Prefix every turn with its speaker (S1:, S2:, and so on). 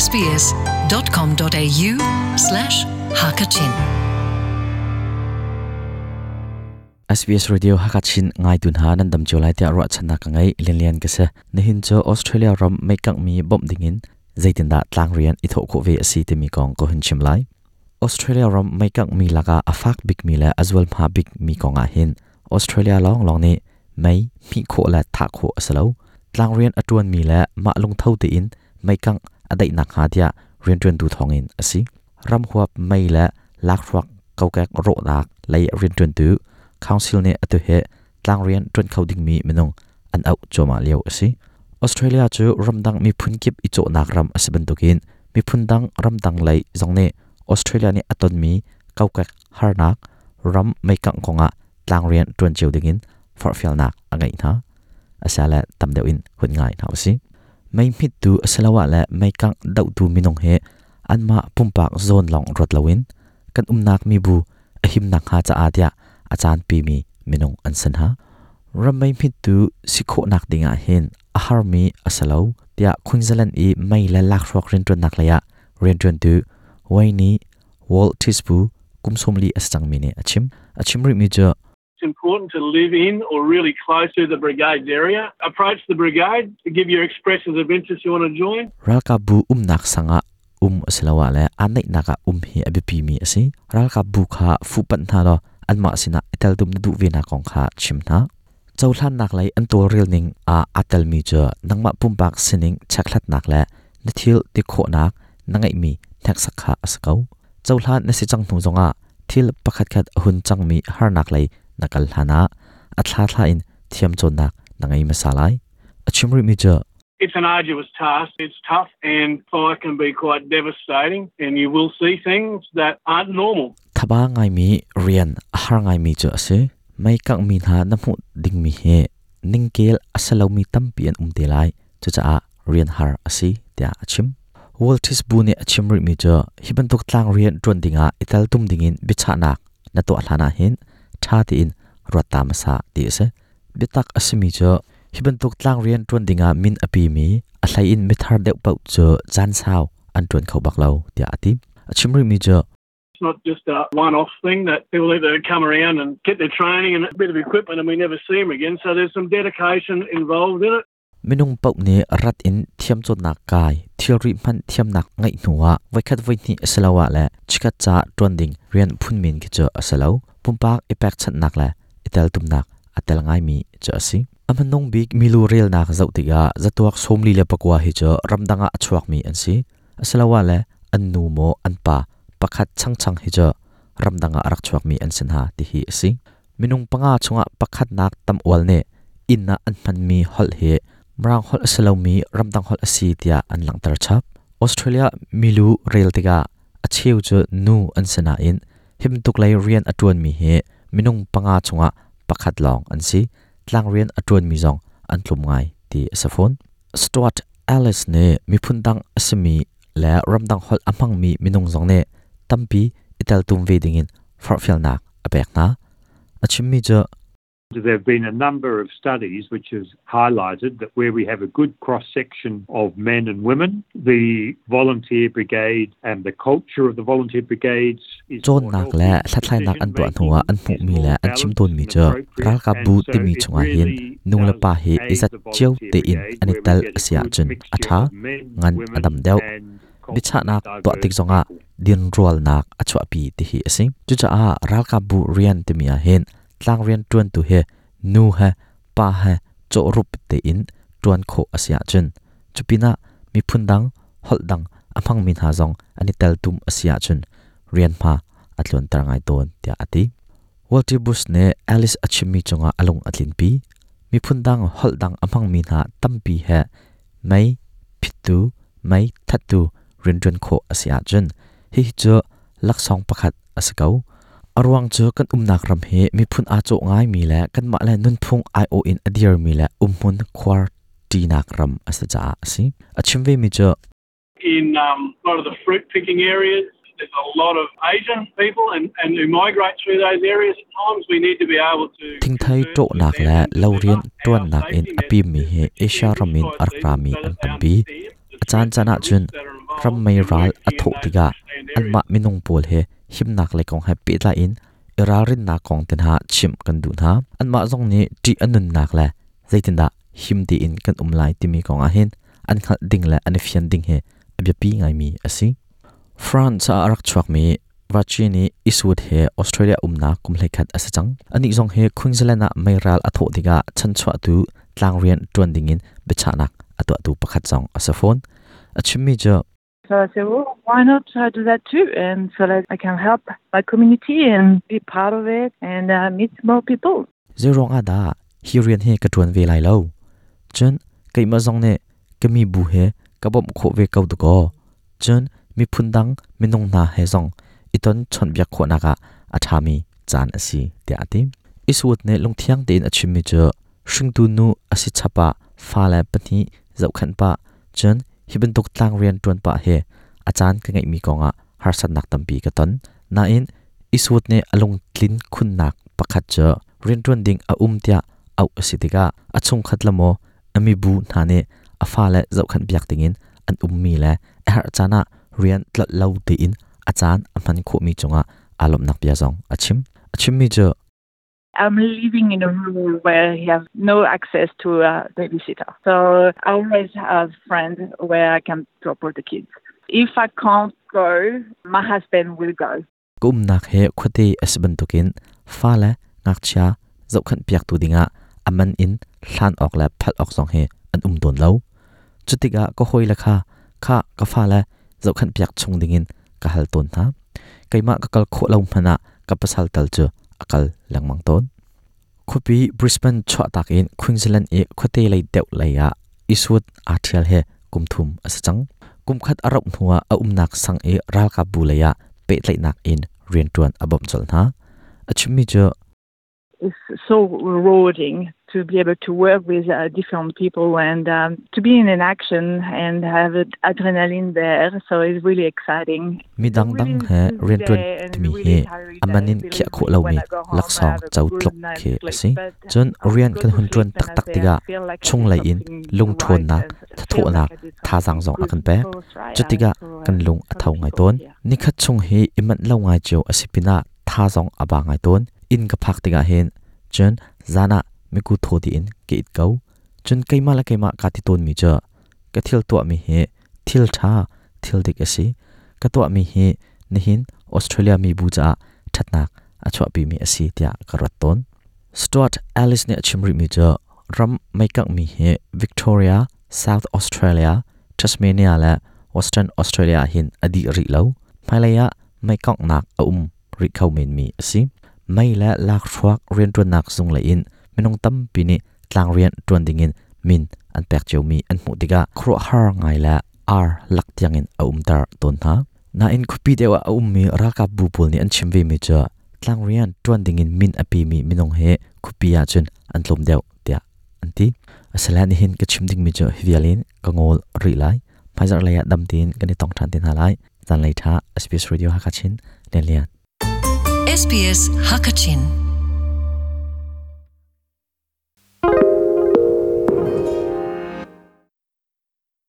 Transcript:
S1: sbs.com.au slash hakachin.
S2: SBS Radio Hakachin ngai tun ha nan dam chu lai tia ro channa ka ngai lian lian ka se nihin cho Australia ram mei kang mi bom dingin zeitin da tlang rian i tho kho ve asi te mi kong ko hun chim lai Australia ram mei kang mi laka afak big mi la azwal ma big mi konga hin Australia long long ni mei mi kho la tha kho asalo tlang rian atuan mi la ma lung tho te in mei kang adai nak ha tia rian tuan tu thong in asi ram huap mei la lak ruak kokek ro nak lei rian tuan tu council ne atu he tlang rian tuan kho ding mi minung an au choma leo asi Australia chu ramdang mi phun kip i cho nak ram asiban tukin mi phun dang ramdang lei zong ne Australia ni aton mi kokek harnak ram mei kang konga tlang rian tuan cheu dingin forfial nak angai na asala tamdeu in hun ngai na si mei mit tu asalawa la mei kang dau tu minung he anma pumpak zone long rot lawin kan umnak mi bu ahim nak ha cha atia achan pi mi minung an san ha ramai mit tu sikho nak dinga hin ahar mi asalo tia Queensland i mei la lak rok rin tun nak laya rin tun tu waini wall tispu kumsomli asang mi ne achim achim ri mi jo
S3: It's important to live in or really close to the brigade's area. Approach the brigade to give your expressions of interest you want to join.
S2: Ralka bu umnak sanga asalawa le anai naka hi abipi mi asi ralka bu kha fu pan tha lo anma sina itel dum na du ve na kong kha chim na chawhlan nak lai an tol ril ning a atel mi cha nangma pumpak sining chaklat nak le na thil ti kho nak nangai mi thak sakha asakau chawhlan na si chang hnu zonga thil pakhat khat hun chang mi har nak lai nakal hlana athla thla in thiam chon nak nangai masalai achimri mi cha
S3: It's an arduous task. It's tough and fire can be quite devastating and you will see things that aren't normal.
S2: Thaba ngai mi rian har ngai mi chu ase mai kang mi na na mu ding mi he ningkel asalo mi tampi an umte lai chu cha a rian har asi tia achim Waltis bu ne achim ri mi chu hiban tok tlang rian tron dinga ital tum dingin bicha nak na to hlana hin tha ti in rota masa ti ase bitak asimi chu hiban tok tlang rian tron dinga min api mi a hlai in mithar deuh pau chu chan sao an tron khau bak lo tia ati achim ri mi chu
S3: It's not just a one-off thing that people either come around and get their training and a bit of equipment and we never see them again. So there's some dedication involved in it.
S2: Minung pau ne rat in thiam chot nak kai thilri man thiam nak ngai nuwa vaikhat vaini asalawa la chikat cha tronding rian phunmin ki cha asalo pumpak ipak chat nak la itel tum nak atel ngai mi cha asi amanong big milu rel nak zau tiga zatuak somli le pakwa hi cha ramdanga achuak mi an si asalawa la an nu mo an pa pakhat chang chang hi cha ramdanga arak chuak mi an sin ha ti hi asi minung panga chunga pakhat nak tam wal ne inna an man mi hol he mrang hol asalomi ramdang hol asi tia an langtar chap Australia milu rail tiga acheu chu nu an sana in him tuk lai rian atuan mi he minung panga chunga pakhat long an si tlang rian atuan mi zong an tlum ngai ti asafon Stuart Alice ne miphun dang asimi la ramdang hol amang mi minung zong ne tampi itel tum ve dingin farfial nak apek na achim mi chu
S4: There have been a number of studies which has highlighted that where we have a good cross-section of men and women, the volunteer brigade and the culture of the volunteer brigades is
S2: chon
S4: more
S2: nak
S4: healthy.
S2: Le thlatlai nak an tuah hnuwa an hmuh mi le an chim ton mi chu ralka bu
S4: And so
S2: ti mi
S4: it
S2: chunga hin
S4: really
S2: nu le
S4: does
S2: pa hi
S4: aid
S2: izat
S4: the
S2: chiu
S4: volunteer
S2: te in
S4: brigade
S2: ani
S4: where we
S2: tal
S4: get a
S2: asia
S4: good
S2: chun
S4: mixture
S2: atha
S4: of men,
S2: ngan
S4: women
S2: adam deuh
S4: and
S2: bicha nak
S4: culturally
S2: to tik
S4: diverse
S2: zonga
S4: people.
S2: Din rual nak achwa pi ti hi ase chu cha a ralka bu rian ti mi a hin tlang rian tuan tu he nu he pa he cho rup te in tuan kho asia chun chupina mi phundang hol dang amang min ha zong ani tel tum asia chun rian ma atlon tar ngai ton tia ati Walter Bush ne Alice achimi chunga alung atlin pi mi phundang hol dang amang min ha tampi he mai phitu mai thatu rin kho asia chun hi chu laksong pakhat asakau arwang chu kan umnak ram he mi phun a cho ngai mi le kan ma le nun phung i o in adir mi le umhmun khwar ti nak ram asacha asi achimve mi chu
S3: In a lot of the fruit picking areas, there's a lot of Asian people and who migrate through those areas. At times we need to be able to
S2: thingthai
S3: converse
S2: to
S3: with
S2: nak
S3: them
S2: le
S3: and
S2: lo rian
S3: deliver
S2: tuan
S3: our
S2: nak in
S3: safety
S2: api mi
S3: messages,
S2: he Asia
S3: particularly
S2: ramin
S3: bushfire
S2: arkrami
S3: season, so
S2: an
S3: that they
S2: tampi
S3: understand the
S2: achan
S3: threats
S2: chana
S3: and the
S2: chun
S3: risks that are
S2: Ram mei ral a thawh tikah anmah minung pawl he himnak lei kong he pehtlai in i ralrinnak kong te hna chimh kan duh hna. Anmah zong nih ṭih a nunnak le zeitindah him tein kan um lai timi kong ah hin an hngalh ding le an i fian ding hi a biapi ngaimi a si. France ah a rak chuakmi Vachi nih Eastwood he Australia umnak kum 11 a si cang. Anih zong hi Queensland ah meiral a thawh tikah chanchuahtu tlangrian ṭuan dingin biachahnak a tuahtu pakhat zong a si fawn. A chimmi cu
S5: So I said, well, why not do that too? And so that I can help my community and be part of it and meet more people.
S2: Zeiruang ah dah hi rian hi ka ṭuan ve lai lo? Cun keimah zong nih ka mi bu he ka bawmh khawh ve ko dakaw. Cun miphun dang minung hna he zong i ton chawnhbiak khawhnak ah a ṭhami caan a si tiah a ti. Eastwood nih lungthiang tein a chimmi cu hringtu nu a si chap ah fale pahnih zohkhenh pah cun hi bantuk tlangrian ṭuan pah hi a caan ka ngeihmi kongah harsatnak tampi ka ton. Nain Eastwood nih a lungtlin khunnak pakhat cu rianṭuan ding a um tiah auh a si tikah a chungkhat le maw a mibu hna nih a fale zohkhenh piak dingin an ummi le a herh caan ah rian tlolh lo tein a caan a hman khawhmi cungah aa lawmhnak bia zong a chim. A chimmi cu
S5: I'm living in a room where you have no access to a babysitter. So I always have friends where I can drop all the kids. If I can't go, my husband will go.
S2: Ka umnak he khuate a si bantukin fale ngakchia zohkhenh piaktu dingah a man in hlan awk le phalh awk zong hi an um tawn lo. Cutikah ka hawile kha kha ka fale zohkhenh piak chung dingin ka hal tawn hna. Keimah ka kal khawh lo hmanh ah ka pasal tal cu a kal lengmang tawn. Khuapi Brisbane chuahtak in Queensland i khuate lei deuh lei ah Eastwood aa ṭhial hi kum thum a si cang. Kum khat a rauh hnuah a umnak sang i ralkapbu lei ah pehtlaihnak in rianṭuan a bawmh colh hna. A chimmi cu
S5: It's so rewarding to be able to work with different people and to be in an action and have adrenaline there. So it's really exciting.
S2: Mi dangdang he rianṭuan timi hi a man in khiah khawh lomi laksawng co tluk khi a si. Cun rian kan hun ṭuan taktak tikah chunglei in lungṭhawnnak, thathawhnak, thazaang zong a kan pek. Cutikah kan lung a tho ngai tawn. Nikhat chung hi i manh lo ngai cio a si pinah tha zong a ba ngai tawn. Inn ka phak tikah hin cun zan ah miku thaw tiin ka it ko. Cun keimah le keimah kaa ti tawnmi cu ka thil tuahmi hi thil ṭha, thil dik a si. Ka tuahmi hi nihin Australia mibu caah ṭhatnak a chuahpimi a si tiah ka ruat tawn. Stuart Ellis nih a chim rihmi cu ram meikanghmi hi Victoria, South Australia, Tasmania le Western Australia ah hin a dih rih lo. Hmailei ah meikanghnak a um rih kho menmi a si. Mei le lakhruak rianṭuannak zung lei in minung tampi nih tlangrian ṭuan dingin min an pek ciomi an hmuh tikah khuaruahhar ngai le ar lak tiangin a umter tawn hna. Nain khuapi deuh ah a ummi ralkapbu pawl nih an chim vemi cu tlangrian ṭuan dingin min a pemi minung hi khuapi ahcun an tlawm deuh tiah an ti. Asile nihin ka chim dingmi cu hi vial in ka ngawl rih lai. Hmaizarh lei ah dam tein kan i tong ṭhan te hna lai. Zanlei ṭha SBS Radio Hakachin Lian Lian.
S1: SBS Hakachin.